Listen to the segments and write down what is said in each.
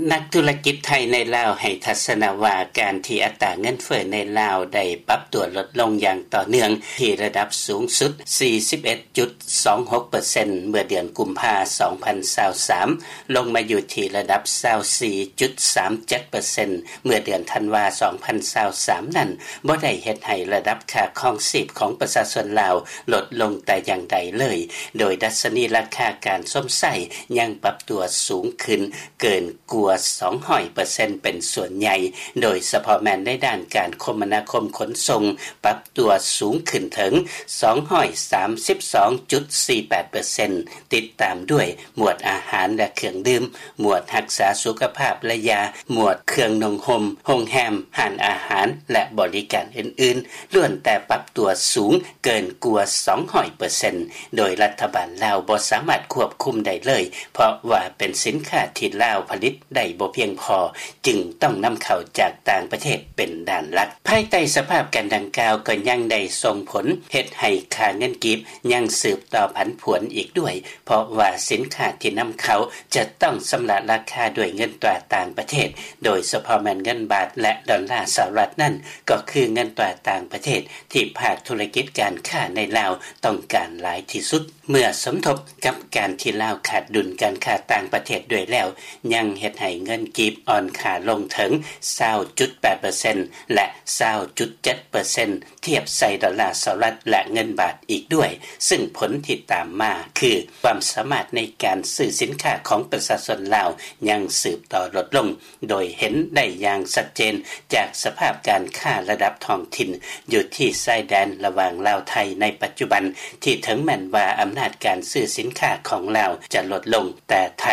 ນັກທຸລະກິດໄທໃນລາວໃຫ້ທັດສະນະວ່າ ການທີ່ອັດຕາເງິນເຟີ້ໃນລາວໄດ້ປັບຕົວລົດລົງຢ່າງຕໍ່ເນື່ອງ ທີ່ລະດັບສູງສຸດ ສີ່ສິບເອັດຈຸດສອງຫົກເປີເຊັນ ເມື່ອເດືອນກຸມພາ ສອງພັນຊາວສາມ ລົງມາຢູ່ທີ່ລະດັບ ຊາວສີ່ຈຸດສາມເຈັດເປີເຊັນ ເມື່ອເດືອນທັນວາ ສອງພັນຊາວສາມ ນັ້ນ ບໍ່ໄດ້ເຮັດໃຫ້ລະດັບຄ່າຄອງຊີບຂອງປະຊາຊົນລາວລົດລົງແຕ່ຢ່າງໃດເລີຍ, ໂດຍດັດຊະນີລາຄາການຊົມໃຊ້ຍັງປັບຕົວສູງຂຶ້ນເກີນກວ່າສອງຮ້ອຍເປີເຊັນເປັນສ່ວນໃຫຍ່, ໂດຍສະເພາະແມ່ນໃນດ້ານການຄົມມະນາຄົມຂົນສົ່ງ ປັບຕົວສູງຂຶ້ນເຖິງສອງຮ້ອຍສາມສິບສອງຈຸດສີ່ແປດເປີເຊັນ ຕິດຕາມດ້ວຍ ໝວດອາຫານ ແລະ ເຄື່ອງດື່ມ, ໝວດຮັກສາສຸຂະພາບ ແລະ ຢາ, ໝວດເຄື່ອງນຸ່ງຫົ່ມ, ໂຮງແຮມ, ຮ້ານອາຫານ ແລະ ບໍລິການອື່ນໆ ລ້ວນແຕ່ປັບຕົວສູງເກີນກວ່າສອງຮ້ອຍເປີເຊັນ ໂດຍລັດຖະບານລາວບໍ່ສາມາດຄວບຄຸມໄດ້ເລີຍ ເພາະວ່າເປັນສິນຄ້າທີ່ລາວຜະລິດໄດ້ບໍ່ພຽງພໍ ຈຶ່ງຕ້ອງນຳເຂົ້າຈາກຕ່າງປະເທດເປັນດ້ານຫຼັກ. ພາຍໃຕ້ສະພາບການດັ່ງກ່າວ ກໍຍັງໄດ້ສົ່ງຜົນເຮັດໃຫ້ຄ່າເງິນກີບຍັງສືບຕໍ່ຜັນຜວນອີກດ້ວຍ ເພາະວ່າສິນຄ້າທີ່ນຳເຂົ້າຈະຕ້ອງຊຳລະລາຄາດ້ວຍເງິນຕາຕ່າງປະເທດ, ໂດຍສະເພາະແມ່ນເງິນບາດ ແລະ ດອນລາສະຫະລັດນັ້ນ ກໍຄືເງິນຕາຕ່າງປະເທດທີ່ພາກທຸລະກິດການຄ້າໃນລາວຕ້ອງການຫຼາຍທີ່ສຸດ. ເມື່ອສົມທົບກັບການທີ່ລາວຂາດດຸນການຄ້າຕ່າງປະເທດດ້ວຍແລ້ວ ຍັງເຮັດໃຫ້ເງິນກີບອ່ອນຄ່າລົງເຖິງຊາວຈຸດແປດເປີເຊັນ ແລະ ຊາວຈຸດເຈັດເປີເຊັນ ທຽບໃສ່ດອນລາສະຫະລັດ ແລະ ເງິນບາດອີກດ້ວຍ, ຊຶ່ງຜົນທີ່ຕາມມາຄື ຄວາມສາມາດໃນການຊື້ສິນຄ້າຂອງປະຊາຊົນລາວຍັງສືບຕໍ່ລົດລົງ, ໂດຍເຫັນໄດ້ຢ່າງຊັດເຈນຈາກສະພາບການຄ້າລະດັບທ້ອງຖິ່ນຢູ່ທີ່ຊາຍແດນລະຫວ່າງລາວ-ໄທໃນປັດຈຸບັນ, ທີ່ເຖິງແມ່ນວ່າອຳນາດການຊື້ສິນຄ້າຂອງລາວຈະລົດລົງ, ແຕ່ໄທ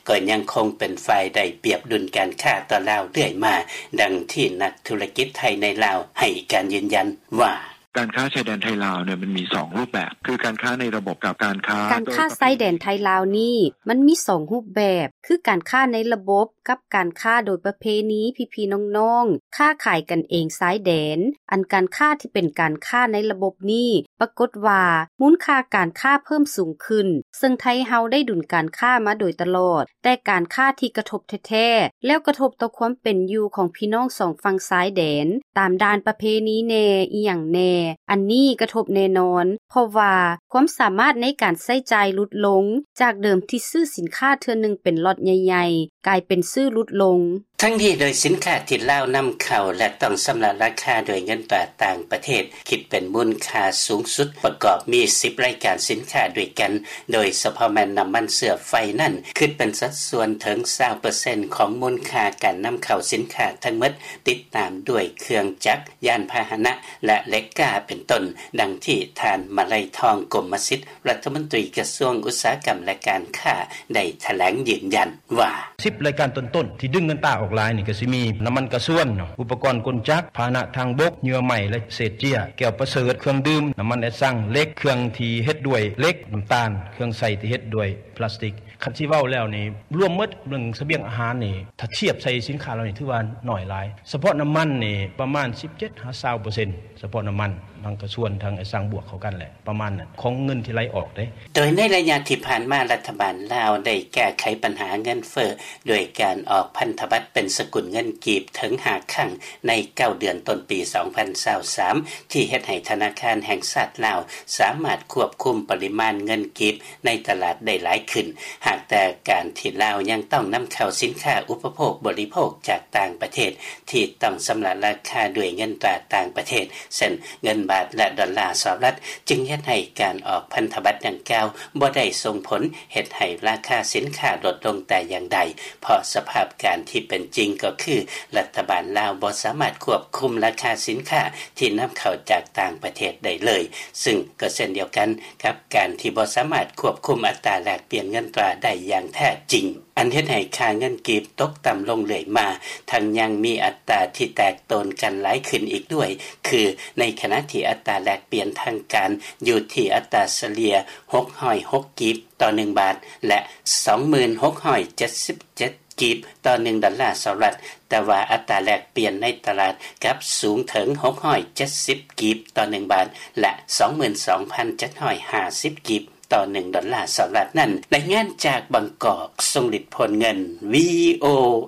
ກໍຍັງຄົງເປັນຝ່າຍໄດ້ປຽບດຸນການຄ້າຕໍ່ລາວເລື້ອຍມາ, ດັ່ງທີ່ນັກທຸລະກິດໄທໃນລາວໃຫ້ການຢືນຢັນວ່າ: ການຄ້າຊາຍແດນໄທລາວເນຍ ມັນມີສອງຮູບແບບ ຄືການຄ້າໃນລະບົບກັບການຄ້າ ການຄ້າຊາຍແດນໄທລາວນີ້ ມັນມີສອງຮູບແບບ ຄືການຄ້າໃນລະບົບ ກັບການຄ້າໂດຍປະເພນີ ພີ່ໆນ້ອງໆ ຄ້າຂາຍກັນເອງຊາຍແດນ. ອັນການຄ້າທີ່ເປັນການຄ້າໃນລະບົບນີ້ ປາກົດວ່າມູນຄ່າການຄ້າເພີ່ມສູງຂຶ້ນ, ເຊິ່ງໄທເຮົາໄດ້ດຸນການຄ້າມາໂດຍຕະຫຼອດ, ແຕ່ການຄ້າທີ່ກະທົບແທ້ໆ ແລ້ວກະທົບຕໍ່ຄວາມເປັນຢູ່ຂອງພີ່ນ້ອງສອງຝັ່ງຊາຍແດນ ຕາມດ່ານປະເພນີແດ່ ອີ່ຫຍັງແດ່ ອັນນີ້ກະທົບແນ່ນອນ, ເພາະວ່າຄວາມສາມາດໃນການໃຊ້ຈ່າຍຫຼຸດລົງ, ຈາກເດີມທີ່ຊື້ສິນຄ້າເທື່ອໜຶ່ງເປັນລັອດໃຫຍ່ໆ ກາຍເປັນຊື້ຫຼຸດລົງ. ທັງນີ້ໂດຍສິນຄ້າທີ່ລາວນຳເຂົ້າ ແລະ ຕ້ອງຊຳລະລາຄາດ້ວຍເງິນຕາຕ່າງປະເທດ ຄິດເປັນມູນຄ່າສູງສຸດປະກອບມີສິບລາຍການສິນຄ້າດ້ວຍກັນ, ໂດຍສະເພາະແມ່ນນ້ຳມັນເຊື້ອໄຟນັ້ນ ຄິດເປັນສັດສ່ວນເຖິງຊາວເປີເຊັນຂອງມູນຄ່າການນຳເຂົ້າສິນຄ້າທັງໝົດ, ຕິດຕາມດ້ວຍເຄື່ອງຈັກ, ຍານພາຫະນະ ແລະ ເຫຼັກກ້າເປັນຕົ້ນ, ດັ່ງທີ່ທ່ານ ມະໄລທອງ ກົມມະສິດ ລັດຖະມົນຕີກະຊວງອຸດສາຫະກຳ ແລະ ການຄ້າ ໄດ້ຖະແຫຼງຢືນຢັນວ່າ: ສິບລາຍການຕົ້ນໆ ທີ່ດຶງເງິນຕາອອກຫຼາຍນີ້ ກໍຊິມີນ້ຳມັນກະຊວນເນາະ, ອຸປະກອນກົນຈັກ, ພາຫະນະທາງບົກ, ເຫຍື່ອໄມ້ ແລະ ເສດເຈ້ຍ, ແກ້ວປະເສີດ, ເຄື່ອງດື່ມ, ນ້ຳມັນແອດຊັງ, ເຫຼັກ, ເຄື່ອງທີ່ເຮັດດ້ວຍເຫຼັກ, ນ້ຳຕານ, ເຄື່ອງໃຊ້ທີ່ເຮັດດ້ວຍພລາສຕິກ. ຄັນຊິເວົ້າແລ້ວນີ້ ລວມໝົດເລື່ອງສະບຽງອາຫານນີ້ ຖ້າທຽບໃສ່ສິນຄ້າເຫຼົ່ານີ້ ຖືວ່າໜ້ອຍຫຼາຍ. ສະເພາະນ້ຳມັນນີ້ປະມານສິບເຈັດຫາຊາວເປີເຊັນ, ສະເພາະນ້ຳມັນ ມັນກະຊວນທາງໄອ້ສັງບວກເຂົ້າກັນແຫຼະ ປະມານນັ້ນ ຂອງເງິນທີ່ໄຫຼອອກເດ້. ໂດຍໃນໄລຍະທີ່ຜ່ານມາ ລັດຖະບານລາວໄດ້ແກ້ໄຂບັນຫາເງິນເຟີ້ ດ້ວຍການອອກພັນທະບັດເປັນສະກຸນເງິນກີບເຖິງຫ້າຄັ້ງໃນເກົ້າເດືອນຕົ້ນປີສອງພັນຊາວສາມ ທີ່ເຮັດໃຫ້ທະນາຄານແຫ່ງຊາດລາວສາມາດຄວບຄຸມປະລິມານເງິນກີບໃນຕະຫຼາດໄດ້ຫຼາຍຂຶ້ນ. ຫາກແຕ່ການທີ່ລາວຍັງຕ້ອງນຳເຂົ້າສິນຄ້າອຸປະໂພກບໍລິໂພກຈາກຕ່າງປະເທດ ທີ່ຕ້ອງຊຳລະລາຄາດ້ວຍເງິນຕາຕ່າງປະເທດ ເຊັ່ນ ເງິນບາດ ແລະ ດອນລາສະຫະລັດ ຈຶ່ງເຮັດໃຫ້ການອອກພັນທະບັດດັ່ງກ່າວບໍ່ໄດ້ສົ່ງຜົນເຮັດໃຫ້ລາຄາສິນຄ້າລົດລົງແຕ່ຢ່າງໃດ, ເພາະສະພາບການທີ່ເປັນຈິງກໍຄື ລັດຖະບານລາວບໍ່ສາມາດຄວບຄຸມລາຄາສິນຄ້າທີ່ນຳເຂົ້າຈາກຕ່າງປະເທດໄດ້ເລີຍ, ຊຶ່ງກໍເຊັ່ນດຽວກັນກັບການທີ່ບໍ່ສາມາດຄວບຄຸມອັດຕາແລກປ່ຽນເງິນຕາໄດ້ຢ່າງແທ້ຈິງ. ອັນເຮັດໃຫ້ຄ່າເງິນກີບຕົກຕ່ຳລົງເລື້ອຍມາ, ທັງຍັງມີອັດຕາທີ່ແຕກໂຕນກັນຫຼາຍຂຶ້ນອີກດ້ວຍ, ຄືໃນຂະນະທີ່ອັດຕາແລກປ່ຽນທາງການຢູ່ທີ່ອັດຕາສະເລ່ຍຫົກຮ້ອຍຫົກກີບຕໍ່ໜຶ່ງບາດ ແລະ ສອງໝື່ນຫົກຮ້ອຍເຈັດສິບເຈັດກີບຕໍ່ໜຶ່ງດອນລາສະຫະລັດ, ແຕ່ວ່າອັດຕາແລກປ່ຽນໃນຕະຫຼາດກັບສູງເຖິງຫົກຮ້ອຍເຈັດສິບກີບຕໍ່ໜຶ່ງບາດ ແລະ ສອງໝື່ນສອງພັນເຈັດຮ້ອຍຫ້າສິບກີບ ຕໍ່ໜຶ່ງດອນລາສະຫະລັດນັ້ນ. ລາຍງານຈາກບາງກອກ ຊົງລິດ ໂພນເງິນ ວີໂອ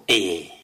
ເອ.